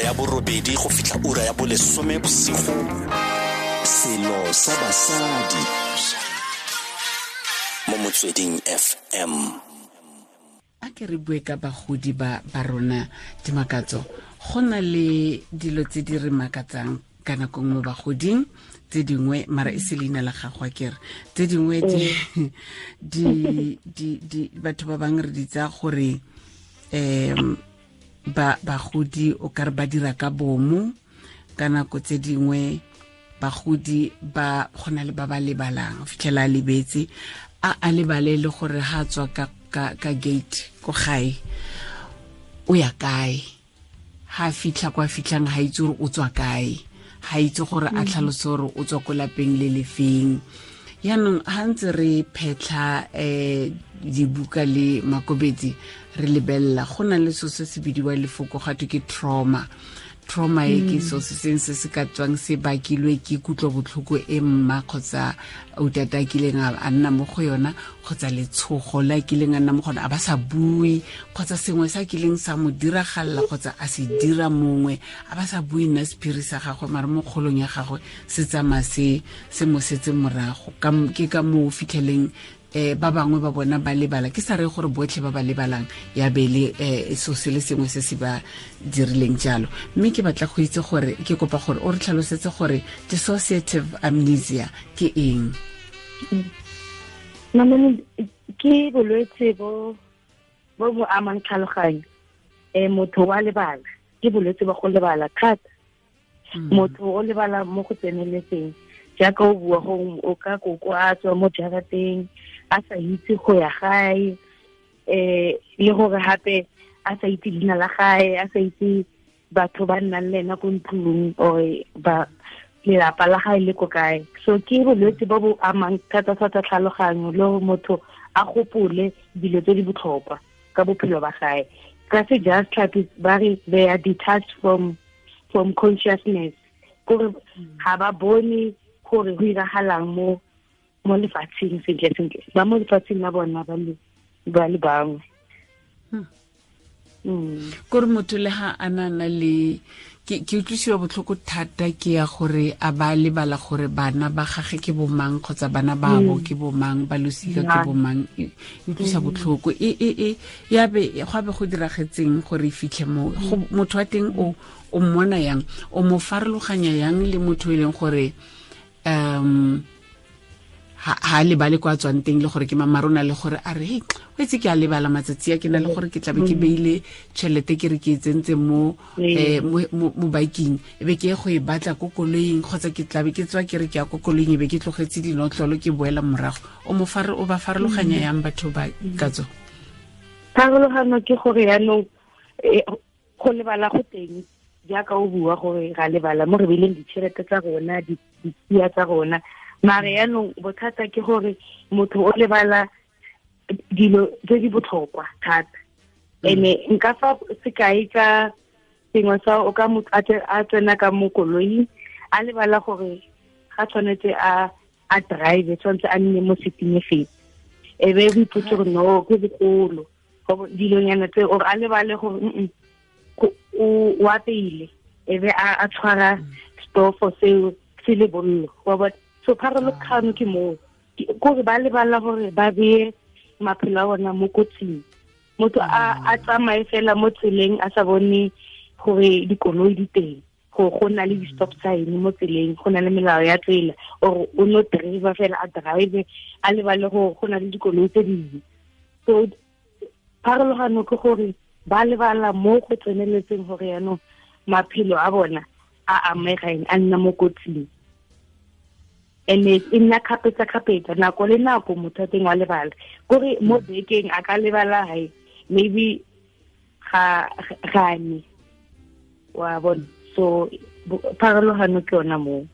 ya 8 go fitlha ura ya 10 bosigo. Selo sa basadi mo Motsweding FM. A ke re bue ka bagodi ba rona Dimakatso. Go na le dilo tse di re makatsang ka nako nngwe bagoding, tse dingwe mara e se leina la gago a kere, tse dingwe di batho ba bangwe re di tsaya gore ba bagodi o ka re ba dira ka bomo. Ka nako tse dingwe bagodi ba gona le ba ba lebalang, o fitlhela a lebetse, a lebale le gore ha tswa ka gate ko gae o ya kae, ha fitlha kwa fitlhang ha itse gore o tswa kae, ha itse gore a tlhalose gore o tswa ko lapeng le lefeng. Yaanong ha ntse re phetlha dibuka le makobetsi re lebelela, go na le so se se bidiwa lefoko ga twe ke trauma. Trauma e ke so se seng se se ka tswang se bakilwe ke kutlobotlhoko e mma kgotsa utata a kileng a nna mo go yona, kgotsa letshogo le a kileng a nna mo go yona a ba sa bue, kgotsa sengwe sa kileng sa mo diragalela kgotsa a se dira mongwe a ba sa bue nna sephiri sa gagwe, mare mo kgolong ya gagwe se tsamaya se mo setse morago. Ke ka moo fitlheleng ba bangwe ba bona ba lebala. Ke sa re gore botlhe ba ba lebalang ya be le so se le sengwe se se ba dirileng jalo. Mme ke batla go itse gore, ke kopa gore o re tlhalosetse gore dissociative amnesia ke eng? Mamane, ke bolwetse bo bo amang tlhaloganyo. Motho wa lebala, ke bolwetse ba go lebala thata. Motho o lebala mo go tseneletseng, jaaka o bua go o ka koko a tswa mo jarateng a sa itse go ya gae, le gore hape a sa itse leina la gae, a sa itse batho ba nnang le ena ko ntlong or ba lelapa la gae le ko kae. So ke bolwetse bo bo amang thata-thata tlhaloganyo, le gore motho a gopole dilo tse di botlhokwa ka bophelo ba gae. Ka sejatlhapi ba re they are detached from consciousness, gore ga ba bone gore go iragalang mo lefatsheng sentle sentle, ba mo lefatsheng la bona ba le bangwe. Kore motho le ha a na le ke utlwisiwa botlhoko thata ke ya gore a ba lebala gore bana ba gage ke bomang kgotsa bana ba bo ke bomang, ba losika ke bomang. E utlwisa botlhoko. E ya be go be go diragetseng gore e fitlhe mo motho wa teng, o mmona yang, o mo farologanya yang le motho e leng gore ha lebale kwa tswang teng, le gore ke mamarona, le gore a re hey, o itse ke a lebala matsatsi a ke na le gore ke tlabe ke beile tšhelete ke re ke e tsentse mo mo biking, e be ke ye go e batla ko koloing, kgotsa ke tlabe ke tswa ke re ke ya ko koloing e be ke tlogetse dinotlolo ke boela morago. O mo o ba farologanya yang batho ba ka tso? Pharologano ke gore yaanong go lebala go teng, jaaka o bua gore ra lebala mo re beileng ditšhelete tsa rona, ditsia tsa rona. Mare yaanong bothata ke gore motho o lebala dilo tse di botlhokwa thata. Ene nka fa sekai ka sengwe sa o ka motho a tsena ka mo koloing a lebala gore ga tshwanetse a drive, tshwanetse a nne mo seating e feng, e be o ipotse gore no ke bogolo dilonyana tse, or a lebale gore o apeile, e be a tshwara stofo seo se le bollo wa bona. So pharologano ke moo, kore ba lebala gore ba beye maphelo a bona mo kotsing. Motho a tsamaye fela mo tseleng a sa bone gore dikoloi di teng, go na le di-stop sign mo tseleng, go na le melao ya tsela, or o no driver fela a drive a lebale gore go na le dikoloi tse dingwe. So pharologano ke gore ba lebala mo go tseneletseng gore yaanong maphelo a bona a amegang, a nna mo kotsing. Ene e nna kgapetsa-kgapetsa, nako le nako motho a teng wa lebala. Kore mo bekeng a ka lebala hae maybe ga gane, wa bona. So pharologano ke yona moo.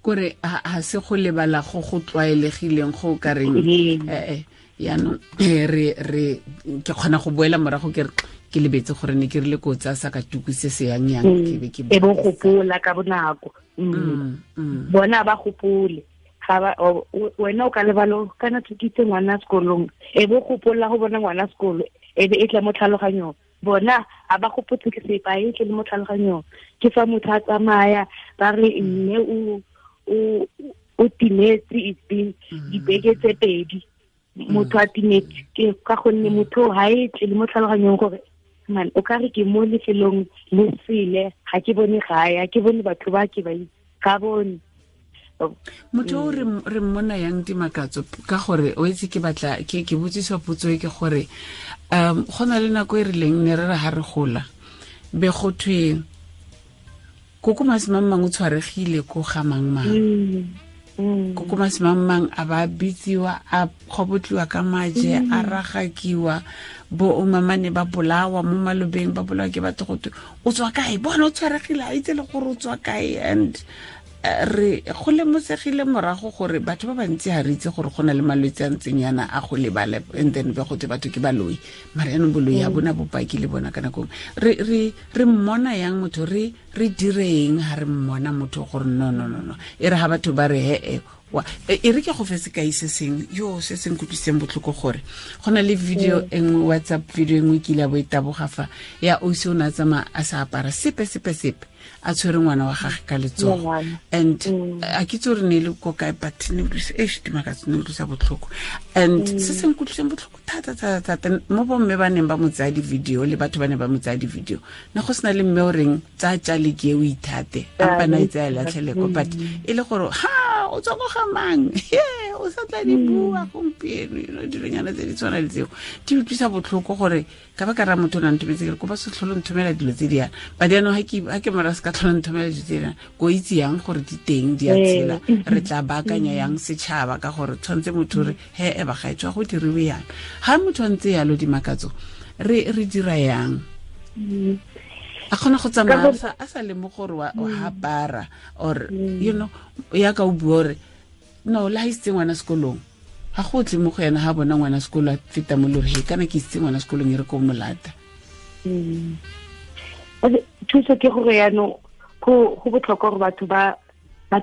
Kore ha se go lebala go go tlwaelegileng go ka reng yaanong re ke kgona go boela morago ke re ke lebetse gore ne ke rile ko tsa sa ka tuku se se yang yang ke be ke e bo gopola ka bonako. Bona ba gopole ga ba wena o ka lebalo kana thutitse ngwana sekolong, e bo gopola go bona ngwana sekolo, e be e tla mo tlhaloganyong. Bona a ba gopotse ke sepa e tle le mo tlhaloganyong ke fa motho a tsamaya ba re mme o timetse, it's been dibeke tse pedi motho a timetse, ke ka gonne motho ha e tle le mo tlhaloganyong gore man o ka re ke mo lefelong le sele, ga ke bone gae, ga ke bone batho ba ke ba itse, ga bone motho o re mmona yang Dimakatso, ka gore o itse ke batla ke botsiswa potso e ke gore go na le nako e rileng ne re re ha re gola be go thwe koko masimang o tshwaregile ko ga mang mang, koko masimang mang a ba bitsiwa, a kgobotliwa ka maje, a ragakiwa, bo omamane ba bolawa mo malobeng, ba bolawa ke batho go thwe o tswa kae, bona o tshwaregile, a itse le gore o tswa kae. And re go lemosegile morago gore batho ba bantsi ha re itse gore go na le malwetse a ntseng yana a go lebala, and then be go twe batho ke baloi, mara yaanong boloi ha bona bopaki le bona ka nako. Re mmona yang motho, re direng ha re mmona motho gore no no no no, e re ha batho ba re he e re ke go fe sekai se seng yo se se nkutlwisitseng botlhoko gore go na le video e nngwe, WhatsApp video e nngwe ke ile a bo e taboga fa ya ausi o ne a tsamaya a sa apara sepe sepe sepe, a tshwere ngwana wa gagwe ka letsogo, and a ke itse gore ne e le ko kae, but ne Dimakatso ne utlwisa botlhoko. And se se nkutlwiseng botlhoko thata thata thata mo bomme ba neng ba mo tsaya di-video le batho ba ne ba mo tsaya di-video, ne go sena le mme o reng tsaya tjale ke e o ithate, ampa na e tsaya latlheleko, but e le gore ha o tswa ko ga mang, o sa tla di bua gompieno, you know, dilonyana tse di tshwana le tseo di utlwisa botlhoko gore ka ba ka ra motho o na nthometse, ke re kopa se tlhole nthomela dilo tse di yana, but jaanong ha ke mora se ka tlhole nthomela dilo tse di yana, ko itse yang gore di teng di a tshela, re tla baakanya yang setšhaba ka gore tshwanetse motho re he e ba gaetswa go diriwe yang. Ha motho a ntse yalo Dimakatso, re dira yang? A kgona go tsamaya a sa lemoge gore wa apara or you know, ya ka o bua gore no le ha isitse ngwana sekolong, ga go tle mo go yena ha bona ngwana sekolo a feta mo lore, he kana ke isitse ngwana sekolong e re ko molata. Thuso ke gore yaanong go botlhokwa gore batho ba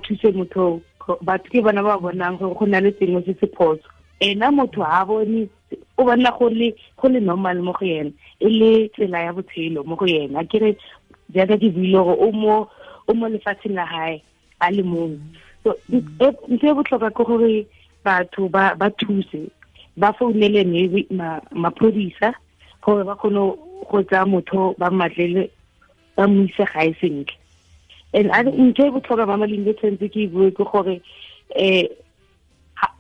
thuse motho, batho ke bona ba bonang gore go na le sengwe se se phoso, ena motho ha bone, o bona go le normal mo go yena, e le tsela ya botshelo mo go yena. Ke re jaaka ke buile gore o mo lefatsheng la hae a le mongwe. So ntho e botlhokwa ke gore batho ba thuse, ba founele maybe maphodisa gore ba kgone go tsaya motho ba mmatlele ba mo ise gae sentle. And ntho e botlhokwa ba Malinge tshwanetse ke e bue ke gore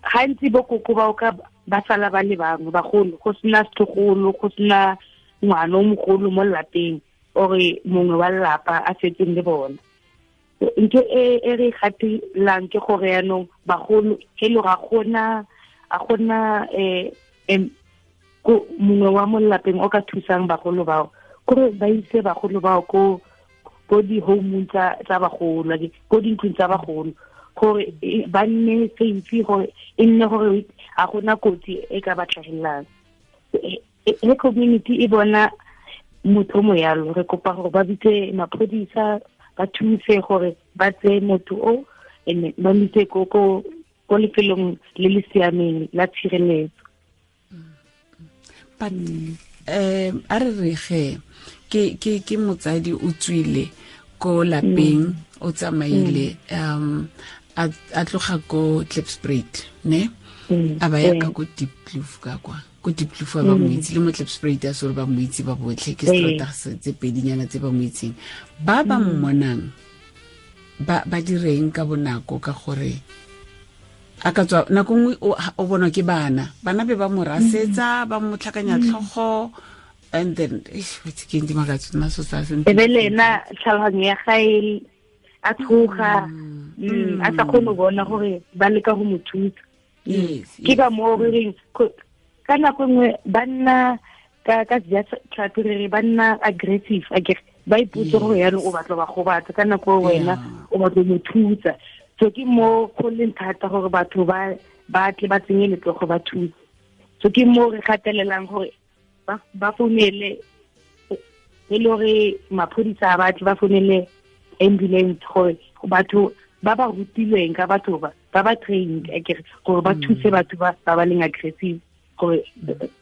gantsi bo koko ba o ka ba sala ba le bangwe bagolo, go sena setlogolo, go sena ngwana o mogolo mo lelapeng ore mongwe wa lelapa a setseng le bona. Ntho e re gatelang ke gore yaanong bagolo e le ga gona mongwe wa mo lelapeng o ka thusang bagolo bao, kore ba ise bagolo bao ko di-home tsa bagolo, ko dintlong tsa bagolo, gore ba nne safe, gore e nne gore ga gona kotsi e ka ba tlhagelelang. He community e bona motho mo yalo, re kopa gore ba bitse maphodisa ba thuse gore ba tseye motho o and ba mo ise ko lefelong le le siameng la tshireletso. But a re re ge ke motsadi o tswile ko lapeng, o tsamaile a tloga ko Klipspruit, ne a ba ya ka ko Diepkloof, ka kwa ko Diepkloof ba mo itse, le mo Klipspruit a sore ba mo itse ba botlhe, ke strata tse pedinyana tse ba mo itseng, ba ba mmonang ba direng ka bonako ka gore a ka tswa nako nngwe o bonwa ke bana be ba mo rasetsa, ba mo tlhakanya tlhogo, and then ke Dimakatso nna so sa e be le ena tlhaloganyo ya gae a tshoga, a sa kgone go bona gore ba leka go mo thusa. Ke ka moo re reng ka nako nngwe ba nna ka sejatlhapi re re ba nna aggressive, akere ba ipotse gore yaanong o batla ba gobatsa, ka nako wena o batla mo thusa. So ke mo go leng thata gore batho ba tle ba tsenye letsogo ba thuse. So ke mo re gatelelang gore ba founele e le gore maphodisa a batle ba founele ambulance, gore batho ba ba rutilweng ka batho ba ba trained akere gore ba thuse batho ba ba leng aggressive, gore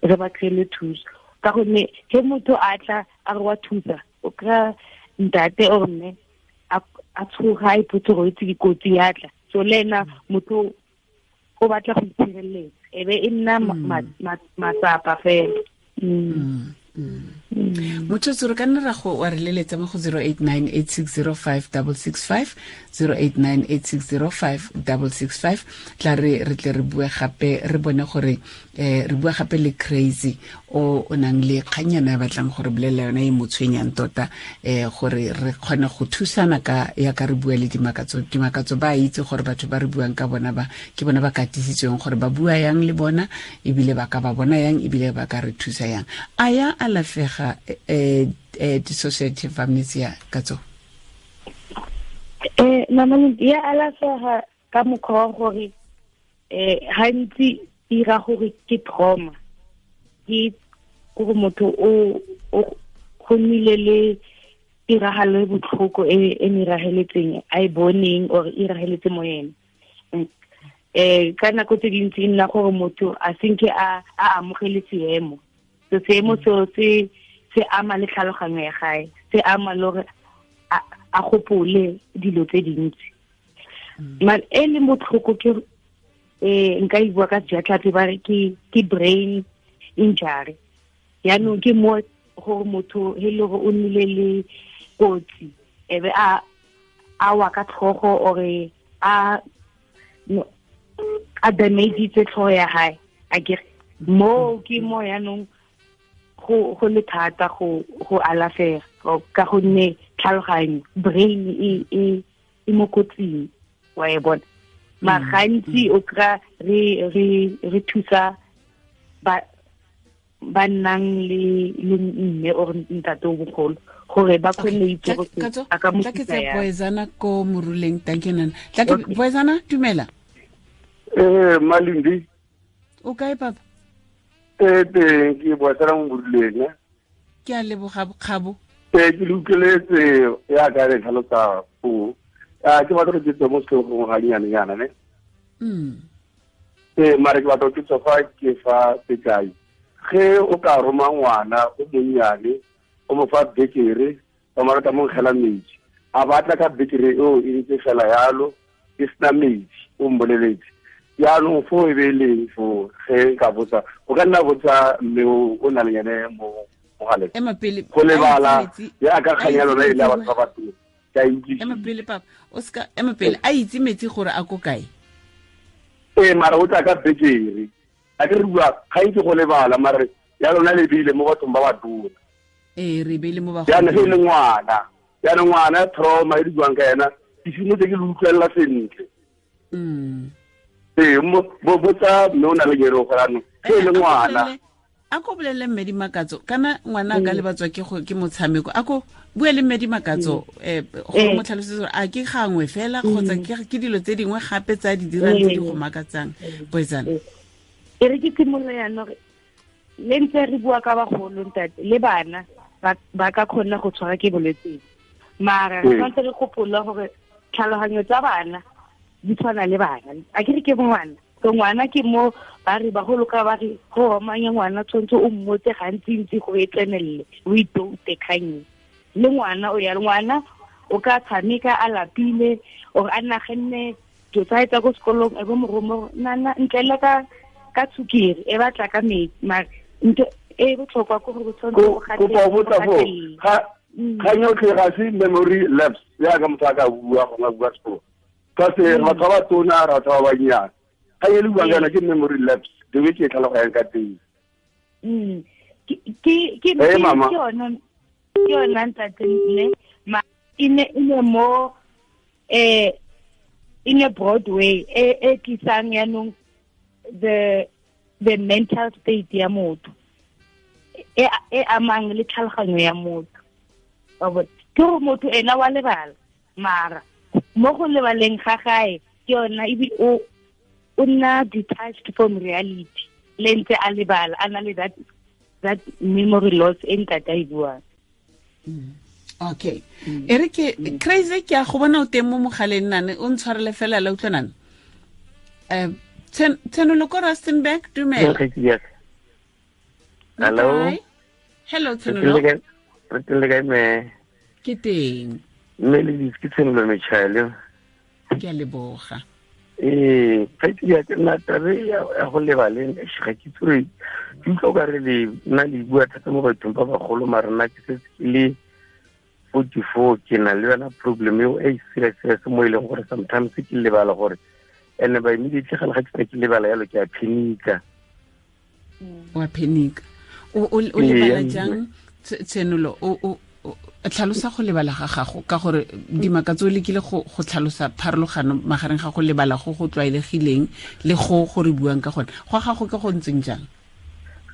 re ba kry-ele thuso. Ka gonne ge motho a tla a re wa thusa, o kry-a ntate or mme a tshoga, a ipotse gore itse dikotsi ya tla. So le ena motho o batla go itshireletsa, e be e nna matsapa fela. Motho re ka nna ra go wa re leletsa mo go 0898605665, 0898605665. Tla re tle re bue gape, re bone gore re bua gape le Crazy o nang le kganyana ya batlang gore bolelela yona e mo tshwenyang tota, gore re kgone go thusana ka ya ka re bua le Dimakatso. Dimakatso ba itse gore batho ba re buang ka bona ba ke bona ba katisitsweng gore ba bua yang le bona, ebile ba ka ba bona yang, ebile ba ka re thusa yang. A ya alafega dissociative amnesia Katso? Mama, ya alafega ka mokgwa wa gore gantsi ira gore ke trauma, ke gore motho o go nnile le tiragalo e botlhoko e mirageletseng a e boneng or e irageletse mo ene. Ka nako tse dintsi e nna gore motho a senke a amogele seemo. So seemo seo se ama le tlhaloganyo ya gae, se ama le gore a gopole dilo tse dintsi. Mare e leng botlhoko ke nka e bua ka sejatlhapi ba re ke brain injury. Yaanong ke mo gore motho he le gore o nnile le kotsi, e be a wa ka tlhogo ore a damagitse tlhogo ya hae, akere mo ke mo yaanong go le thata go alafega ka gonne tlhaloganyo brain e mo kotsing, wa e bona. Mara gantsi o kry-a re thusa ba nnang le mme or ntate o bogolo gore ba kgone go itse gore a ka mo thusa yang. Boezana ko Moruleng, thank you nana. Tla ke Boezana, dumela. Malindi. O kae papa? Teng ke Boezana mo Moruleng. Ke a leboga Kgabo. Ke le utlweletse ya ka re tlhalosa foo. Ke batla go ke tswe mo setlhogong ga nnyane-nyana ne. Mare ke batla go ke tswa fa ke fa sekai. Ge o ka roma ngwana o monnyane, o mo fa bekere, ba mo rata mo nkgela metsi. A batla ka bekere eo e ntse fela yalo, e sena metsi, o mboleletse. Jaanong foo e be e leng foo, ge nka botsa, o ka nna botsa mme o na le ene mo mogaleng. Go lebala jaaka kgang ya lona e le ya batho ba batona. Ema pele papa, o ska ema pele, a itse metsi gore a ko kae? Mara o tla ka bekere. A ke re bua ga itse go lebala, mare ya lona le beile mo bathong ba batona. Re beile mo bagolong. Jaanong ge e le ngwana, jaanong ngwana trauma e di buang ka ena, ke simotse ke le utlwelela sentle. Botsa mme o na le kere gore anong ge e le ngwana. A ko bolele mme Dimakatso, kana ngwana a ka lebatswa ke motshameko. A ko bue le mme Dimakatso, go mo tlhalosetse gore a ke gangwe fela kgotsa ke dilo tse dingwe gape tsa di dirang tse di go makatsang. Boetsana. E re ke simolola jaanong, le ntse re bua ka bagolo ntate, le bana ba ka kgona go tshwara ke bolwetse. Mara re tshwanetse re gopola gore tlhaloganyo tsa bana di tshwana le bana. A ke re ke ngwana, so ngwana ke mo ba re bagolo ka ba re go omanya ngwana tshwanetse o mmotse gantsi-ntsi gore e tsenelele, o itoute kgang. Le ngwana o ya le ngwana o ka tshameka a lapile or a naganne dilo tsa tsa ko sekolong, e bo mo roma nana ntle ka tshukiri e batla ka metsi. Mare ntho e botlhokwa ke gore o tshwanetse o gatelele. Kgang yotlhe ga se memory lapse jaaka motho a ka bua gongwe a bua sekolo. Ka se batho ba batona, batho ba bannyane. Ga e le buang kana ke memory lapse, the way ke e tlhaloganyang ka teng. Ke yona ntate ne, ma e ne mo in a broad way e tlisang yaanong the mental state ya motho e amang le tlhaloganyo ya motho. Ke gore motho ena wa lebala, mara mo go lebaleng ga gae ke yona ebile o nna detached from reality, le ntse a lebala, a na le that memory loss e ntate a e buang. Okay. E re ke Crazy, ke a go bona o teng mo mogaleng nane, o ntshwarele fela la utlwa nane. Tshenolo ko Rustenburg, dumela. Hello. Hello Tshenolo. Re teng le kae me? Ke teng. Mme le ditse ke Tshenolo Metšhale. Ke a leboga. Ee, kgaitsedi ya ka nna tabe ya go lebaleng ga ke itse gore ke utlwa o ka re le nna le bua thata mo bathong ba bagolo, mara nna ke setse ke le 44, ke na le yona problem eo e serious serious mo e leng gore sometimes ke lebala gore and by immediately ga le ga ke sena ke lebala yalo ke a phenika. Wa phenika. O lebala jang Tshenolo? O tlhalosa go lebala ga gago ka gore Dimakatso o lekile go tlhalosa pharologano magareng ga go lebala go go tlwaelegileng le go re buang ka gone. Go gago ke go ntseng jang?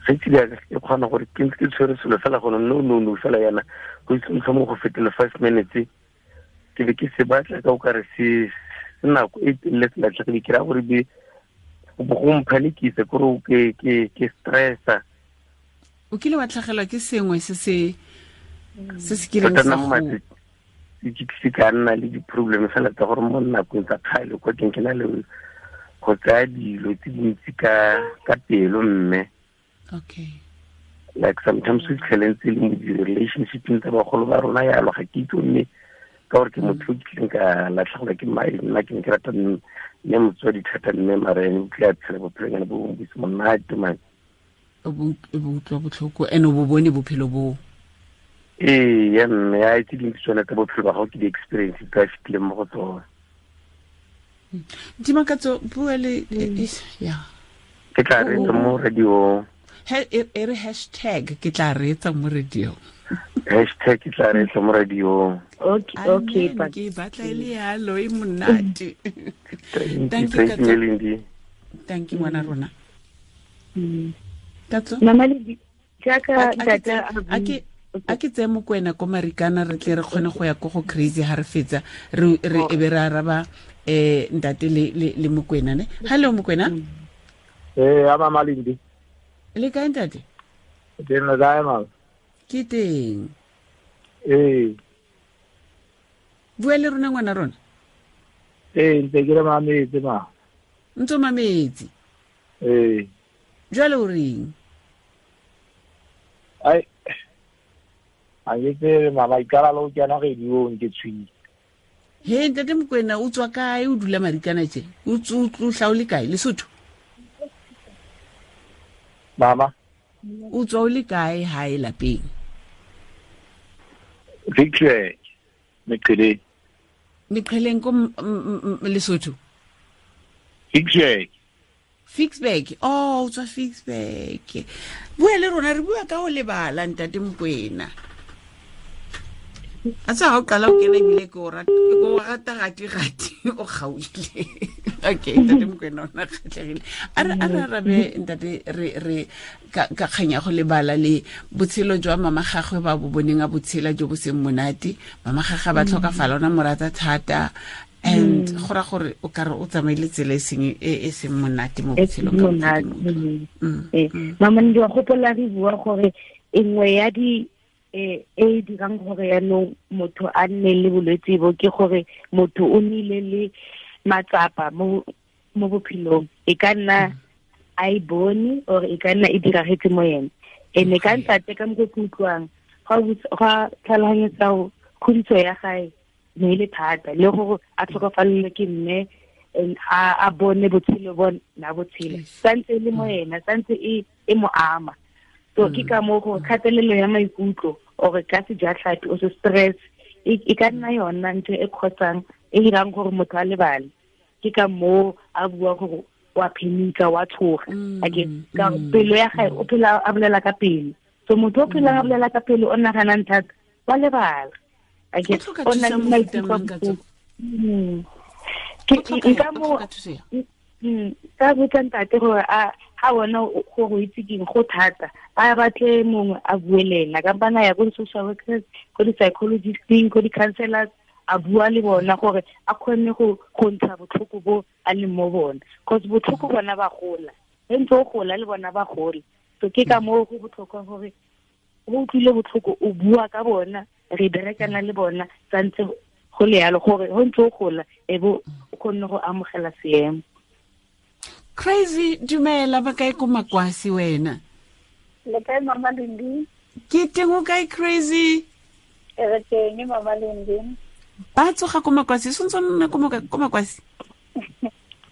Kgaitsedi ya ka ke kgona gore ke ntse ke tshwere selo fela gone no fela yana go itse motlhomong go fetele 5 minutes ke be ke se batla ka o kare se nako e telele se latlhegile, ke raya gore be go mphanikisa kore ke stressa. O kile wa tlhagelwa ke sengwe se se kileng sa go ke tlise ka nna le di-problem fela tsa gore mo nakong tsa kgale kwa teng ke na le go tsaya dilo tse dintsi ka pelo mme. Okay. Like sometimes we fitlhele ntse le mo di-relationshipeng tsa bagolo ba rona yalo, ga ke itse mme ka gore ke motho o kileng ka latlhegelwa ke mae, nna ke ne ke rata mme motswadi thata mme mara ene o tlile a tshela bophelonyana bo bongwe bo se monate man. O bo utlwa botlhoko and o bo bone bophelo boo. Ee, ya mme a itse dintsi tsone tsa bophelo ba gago ke di-experience tse a fetileng mo go tsone. Dimakatso, bua le ya. Ke tla reetsa mo radio. E re hashtag ke tla reetsa mo radio. Hashtag ke tla reetsa mo radio. Okay, ke batla e le yalo e monate. Thank you, Thank you ngwana rona. Katso? Mama le jaaka tata a ke tseye Mokwena ko Marikana re tle re kgone go ya ko go Crazy ha re fetsa re e be re araba ntate le Mokwena ne. Hello Mokwena. Ee, mama Lindi. Le kae ntate? Ke nna kae mama? Ke teng. Ee. Bua le rona ngwana rona. Ee, ntse ke re mametse ma. Ntse mametse. Ee. Jwale o reng? Ai a ke tsebe mama, ikala le go kena radiong ke tshwile. He ntate Mokwena, o tswa kae? O dula Marikana tje? O tla o le kae? Lesotho? Mama? O tswa o le kae hae lapeng? Victory, Meqheleng. Meqheleng ko Lesotho? Victory. Ficksburg. Oh, o tswa Ficksburg. Bua le rona, re bua ka ho lebala ntate Mokwena. A tsa ha o qala o kena ebile ke o rata gati o kgaohile. Okay, ntate Mokwena o na kgatlhegile. A re arabe ntate re ka kganya go lebala le botshelo jwa mama gagwe ba bo boneng a botshela jo bo seng monate. Mama gagwe ba tlhokafala, ona mo rata thata. And go ra gore o ka re o tsamaile tsela e seng monate mo botshelong ka monate. Mama ndi wa gopola re bua gore e nngwe ya di e dirang gore yaanong motho a nne le bolwetse bo ke gore motho o nnile le matsapa mo bophelong, e ka nna a e bone or e ka nna e diragetse mo yena. Ene ka ntate ka mokgo ke utlwang ga tlhaloganyetsa kgodiso ya gae ne e le thata, le gore a tlhokafalelwe ke mme a bone botshelo bo na botshelo santse e le mo yena, santse e mo ama. So ke ka moo gore kgatelelo ya maikutlo or ka sejatlhapi o se stress e ka nna yona ntho e kgotsang e dirang gore motho a lebale. Ke ka moo a bua gore wa phenika, wa tshoga. Ake ka pelo ya gae o phela a bolela ka pelo. So motho o phelang a bolela ka pelo o naganang thata wa lebala. Ake o na le maikutlo. Ke nka mo ka botsa ntate gore a ha bona gore o itse keng go thata, a batle mongwe a bue le ena, kampana ya ko di-social workers, ko di-psychologisteng, ko di-counselors, a bua le bona gore a kgone go ntsha botlhoko bo a leng mo bona, cause botlhoko bona ba gola, ge ntse o gola le bona ba gola. So ke ka moo go botlhokwa gore o utlwile botlhoko o bua ka bona, re berekana le bona santse go le yalo gore go ntse o gola e bo o kgonne go amogela seemo. Crazy, dumela ba kae ko Makwasi wena? Le kae mama Lindi? Ke teng, o kae, Crazy? Re teng, Mama Lendi. Ba tsoga ko Makwasi, sentse nna ko Makwasi?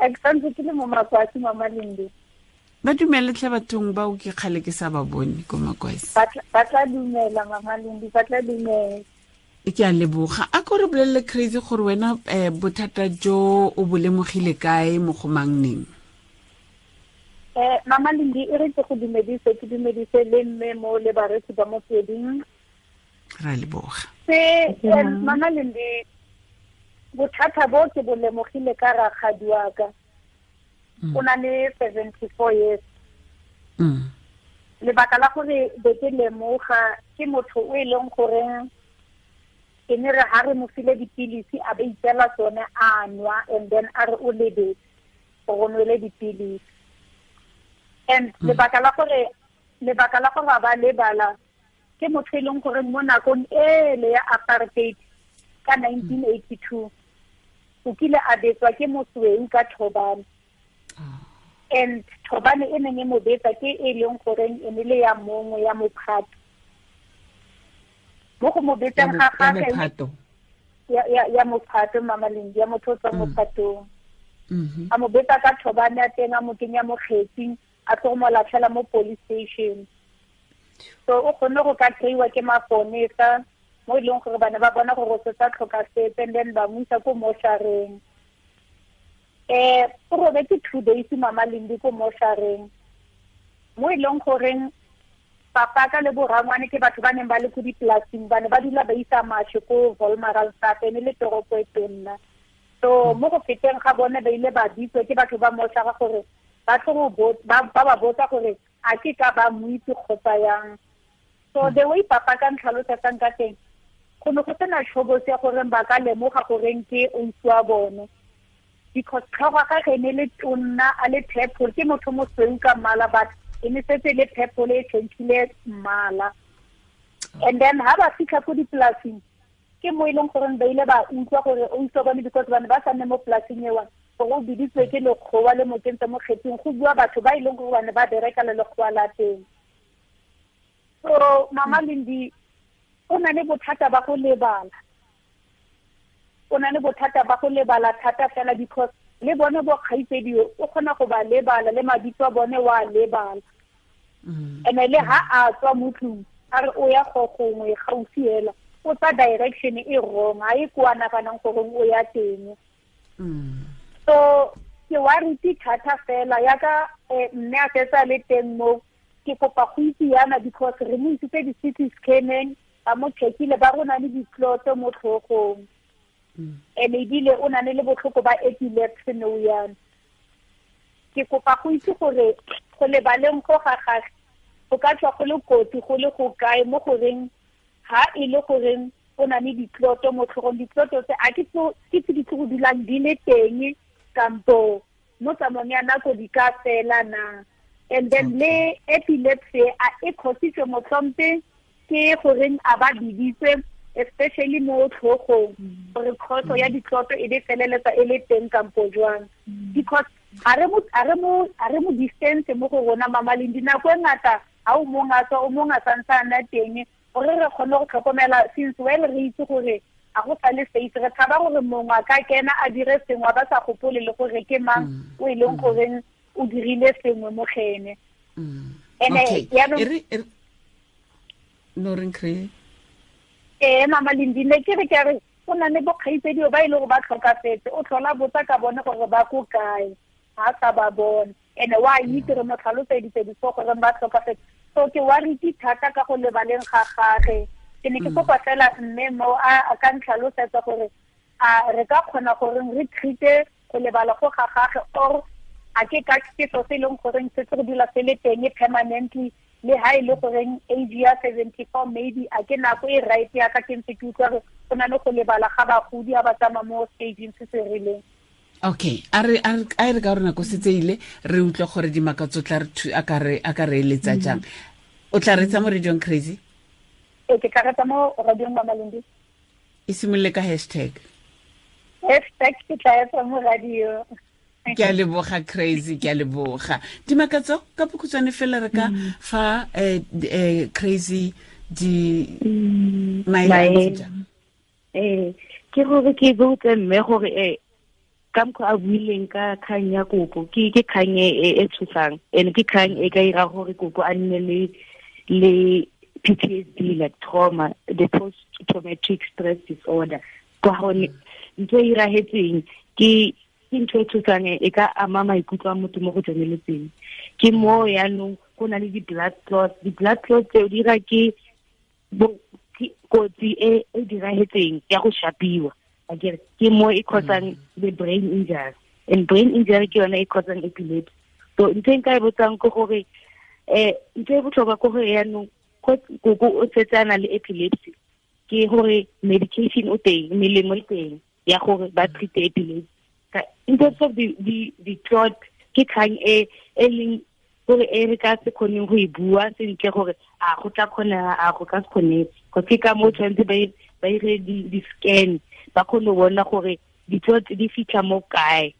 Ke santse ke le mo Makwasi, Mama Lendi. Ba dumele tlhe bathong bao, ke kgale ke sa ba bone ko Makwasi. Ba tla dumela, Mama Lendi, ba tla dumela. Ke a leboga. A ko re bolelele, Crazy, gore wena bothata jo o bo lemogile kae, mo go mang, neng? Mama Lendi, e re ke go dumedise, ke dumedise le mme mo le baretsi ba Motsweding. Ra leboga. Se Mama Lendi, bothata bo ke bo lemogile ka rakgadi wa ka. O na le 74 years. Lebaka la gore be ke lemoga, ke motho o e leng goreng ke ne re ha re mo file dipilisi, a ba itseela tsone a nwa, and then a re o lebetse gore o nwele dipilisi. And lebaka la gore ba lebala, ke motho e leng gore mo nakong ele ya apartheid ka 1982 o kile a betswa ke mosweu ka thobane, and thobane e neng e mo betsa ke e leng goreng e ne le ya mongwe ya mophato mo go mo betseng ga gagwe. Ya mophato, Mama Lendi, ya motho o tswa mophatong. A mo betsa ka thobane ya teng, a mo kenya mo kgetsing, a tlo go mo latlhela mo police station. So o kgonne go ka kry-iwa ke maponesa, mo e leng gore ba ne ba bona gore o setse a tlhokafetse, and then ba mo isa ko moshareng. O robetse 2 days, Mama Lendi, ko moshareng, mo e leng goreng papa ka le borangwane ke batho ba neng ba le ko dipolasing, ba ne ba dula ba isa mashe ko Wolmaransstad, ene le toropo e tonna. So mo go feteng ga bone, ba ile ba bitswa ke batho ba moshara gore ba tlo go ba botsa gore a ke ka ba mo itse kgotsa yang. So the way papa ka ntlhalosetsang ka teng, go ne go sena tshobotsi ya goreng ba ka lemoga goreng ke ausi wa bone, because tlhogo ga ge ne le tonna, a le purple, ke motho mosweu ka mmala, but e ne setse le purple, e change-ile mmala. And then ha ba fitlha ko dipolasing, ke mo e leng goreng ba ile ba utlwa gore ausi wa bone, because ba ne ba sa nne mo polasing ewa, gore o biditswe ke lekgowa le mo kentse mo kgetsing, go bua batho ba e leng gore ba ne ba bereka le lekgowa la teng. So Mama Lendi, o na le bothata ba go lebala, o na le bothata ba go lebala thata fela, because le bone bo kgaitsedi o kgona go ba lebala, le mabitso a bone wa lebala. And le ha a tswa mo tlung, a re o ya go gongwe gaufi hela, o tsa direction e wrong, ha e ko a naganang gore o ya teng. So ke worried thata fela yaka mme a fetsa le teng mo. Ke kopa go itse yana, because re mo isitse di-CT scanning, ba mo checkile, ba rona le ditloto mo tlhogong, and ebile o na le botlhoko ba epilepsy nou yana. Ke kopa go itse gore go lebaleng go ga gage go ka tswa go le kotsi go le go kae, mo goreng ha e le goreng o na le ditloto mo tlhogong, ditloto tse a ke tse di tlo go dulang di le teng, kampo mo tsamaong ya nako di ka fela na? And then le epilepsy, a e khositswe motlhompe ke goreng a ba biditswe, especially mo tlhogong, gore khoso ya ditloto e be feleletsa e le teng kampo jwang? Because a re mo distance mo go rona, Mama Lendi, nako e ngata ha o mong a tswa, o mong a santse a nna teng, gore re kgone go tlhokomela, since well re itse gore a go sa le safe. Re tshaba gore mongwe a ka kena a dire sengwe, a ba sa gopole le gore ke mang o e leng goreng o dirile sengwe mo gene. Ene no reng kry? Ee, Mama Lendi, ne ke re ke re go na le bokgaitsedio ba e le gore ba tlhokafetse, o tlhola botsa ka bone gore ba ko kae, ga sa ba bone. And wa itse re mo tlhaloseditse before gore ba tlhokafetse. So ke worried thata ka go lebaleng ga gage. Ke ne ke kopa fela mme mo a ka ntlhalosetsa gore a re ka kgona gore re treat-e go lebala go ga gage, or a ke ka ke so se e leng goreng se tse go dula se le teng permanently, le ha e le goreng age ya 74 maybe a ke nako e right ya ka ke ntse ke utlwa gore go na le go lebala ga bagodi a ba tsamaya mo stageng se se rileng? Okay, a re a re ka gore nako setse ile, re utlwa gore Dimakatso tla re a ka re eletsa jang. O tla retsa mo radiong, Crazy? Ee, ke tla retsa mo radiong, Mama Lendi. E simolole ka hashtag. Hashtag ke tla etsa mo radio. Ke a leboga, Crazy, ke a leboga. Dimakatso, ka bokhutshwane fela, re ka fa Crazy Di maele eh ke gore ke botse mme gore ka mokgwa a buileng ka kgang ya koko, ke kgang e tshosang, and ke kgang e ka ira gore koko a nne le PTSD, like trauma, the post traumatic stress disorder. Ka gonne ntho e irahetseng ke ntho e tshosang, e ka ama maikutlo a motho mo go tseneletseng. Ke mo yaanong go na le di-blood clots. Di-blood clots tseo di ira ke kotsi e e dirahetseng ya go shapiwa. Akere ke mo e causang the brain injury, and brain injury ke yone e causang epilepsy. So ntho e nka e botsang ke gore ntho e botlhokwa ke gore yaanong koko o setse a na le epilepsy, ke gore medication o teng, melemo e teng ya gore ba treat epilepsy. In terms of the clot, ke kgang e e leng gore e re ka se kgoneng go e bua sentle gore a go tla kgonega, a go ka se kgonege, go ke ka mo tshwanetse ba ire di-scan, ba kgone go bona gore di-clot di fitlha mo kae,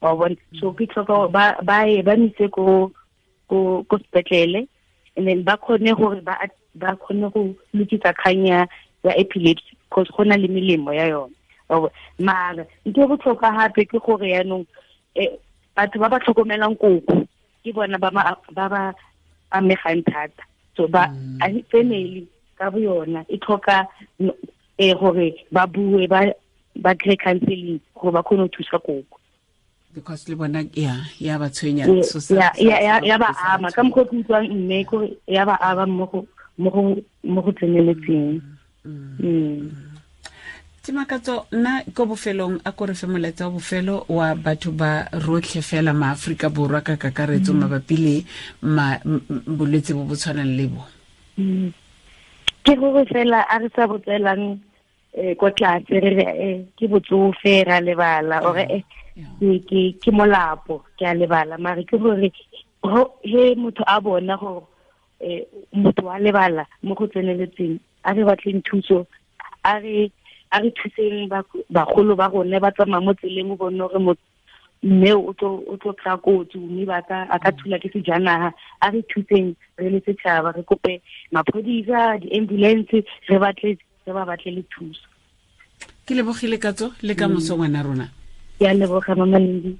wa bona. So ke tlhoka ba ye ba mise ko sepetlele, and then ba kgone gore ba kgone go lokisa kgang ya epilepsy, because go na le melemo ya yone. Mara ntho e botlhokwa gape ke gore yaanong batho ba ba tlhokomelang koko ke bona ba ba amegang thata. So ba family ka bo yona e tlhoka gore ba bue, ba kry counseling gore ba kgone go thusa koko, because le bona ya ba tshwenya, ya ba ama ka mokgwa ke utlwang mme kore ya ba ama mo go tseneletseng. Dimakatso, nna ko bofelong a ko re fe molaetsa wa bofelo wa batho ba rotlhe fela maAforika Borwa ka kakaretso mabapi le bolwetse bo bo tshwanang le bo. Ke gore fela a re sa botselang ko tlase re re ke botsofe ra lebala, ore ke molapo ke a lebala, mare ke gore he motho a bona gore motho wa lebala mo go tseneletseng, a re batleng thuso, a re thuseng bagolo ba rona ba tsamaya mo tseleng, o bone gore mme o tlo kry-a kotsi, mme a ka thula ke sejanaga. A re thuseng re le setšhaba, re kope maphodisa, di-ambulance, re ba batle le thuso. Ke lebogile Katso, le ka moso ngwana rona. Ke a leboga Mama Lindi.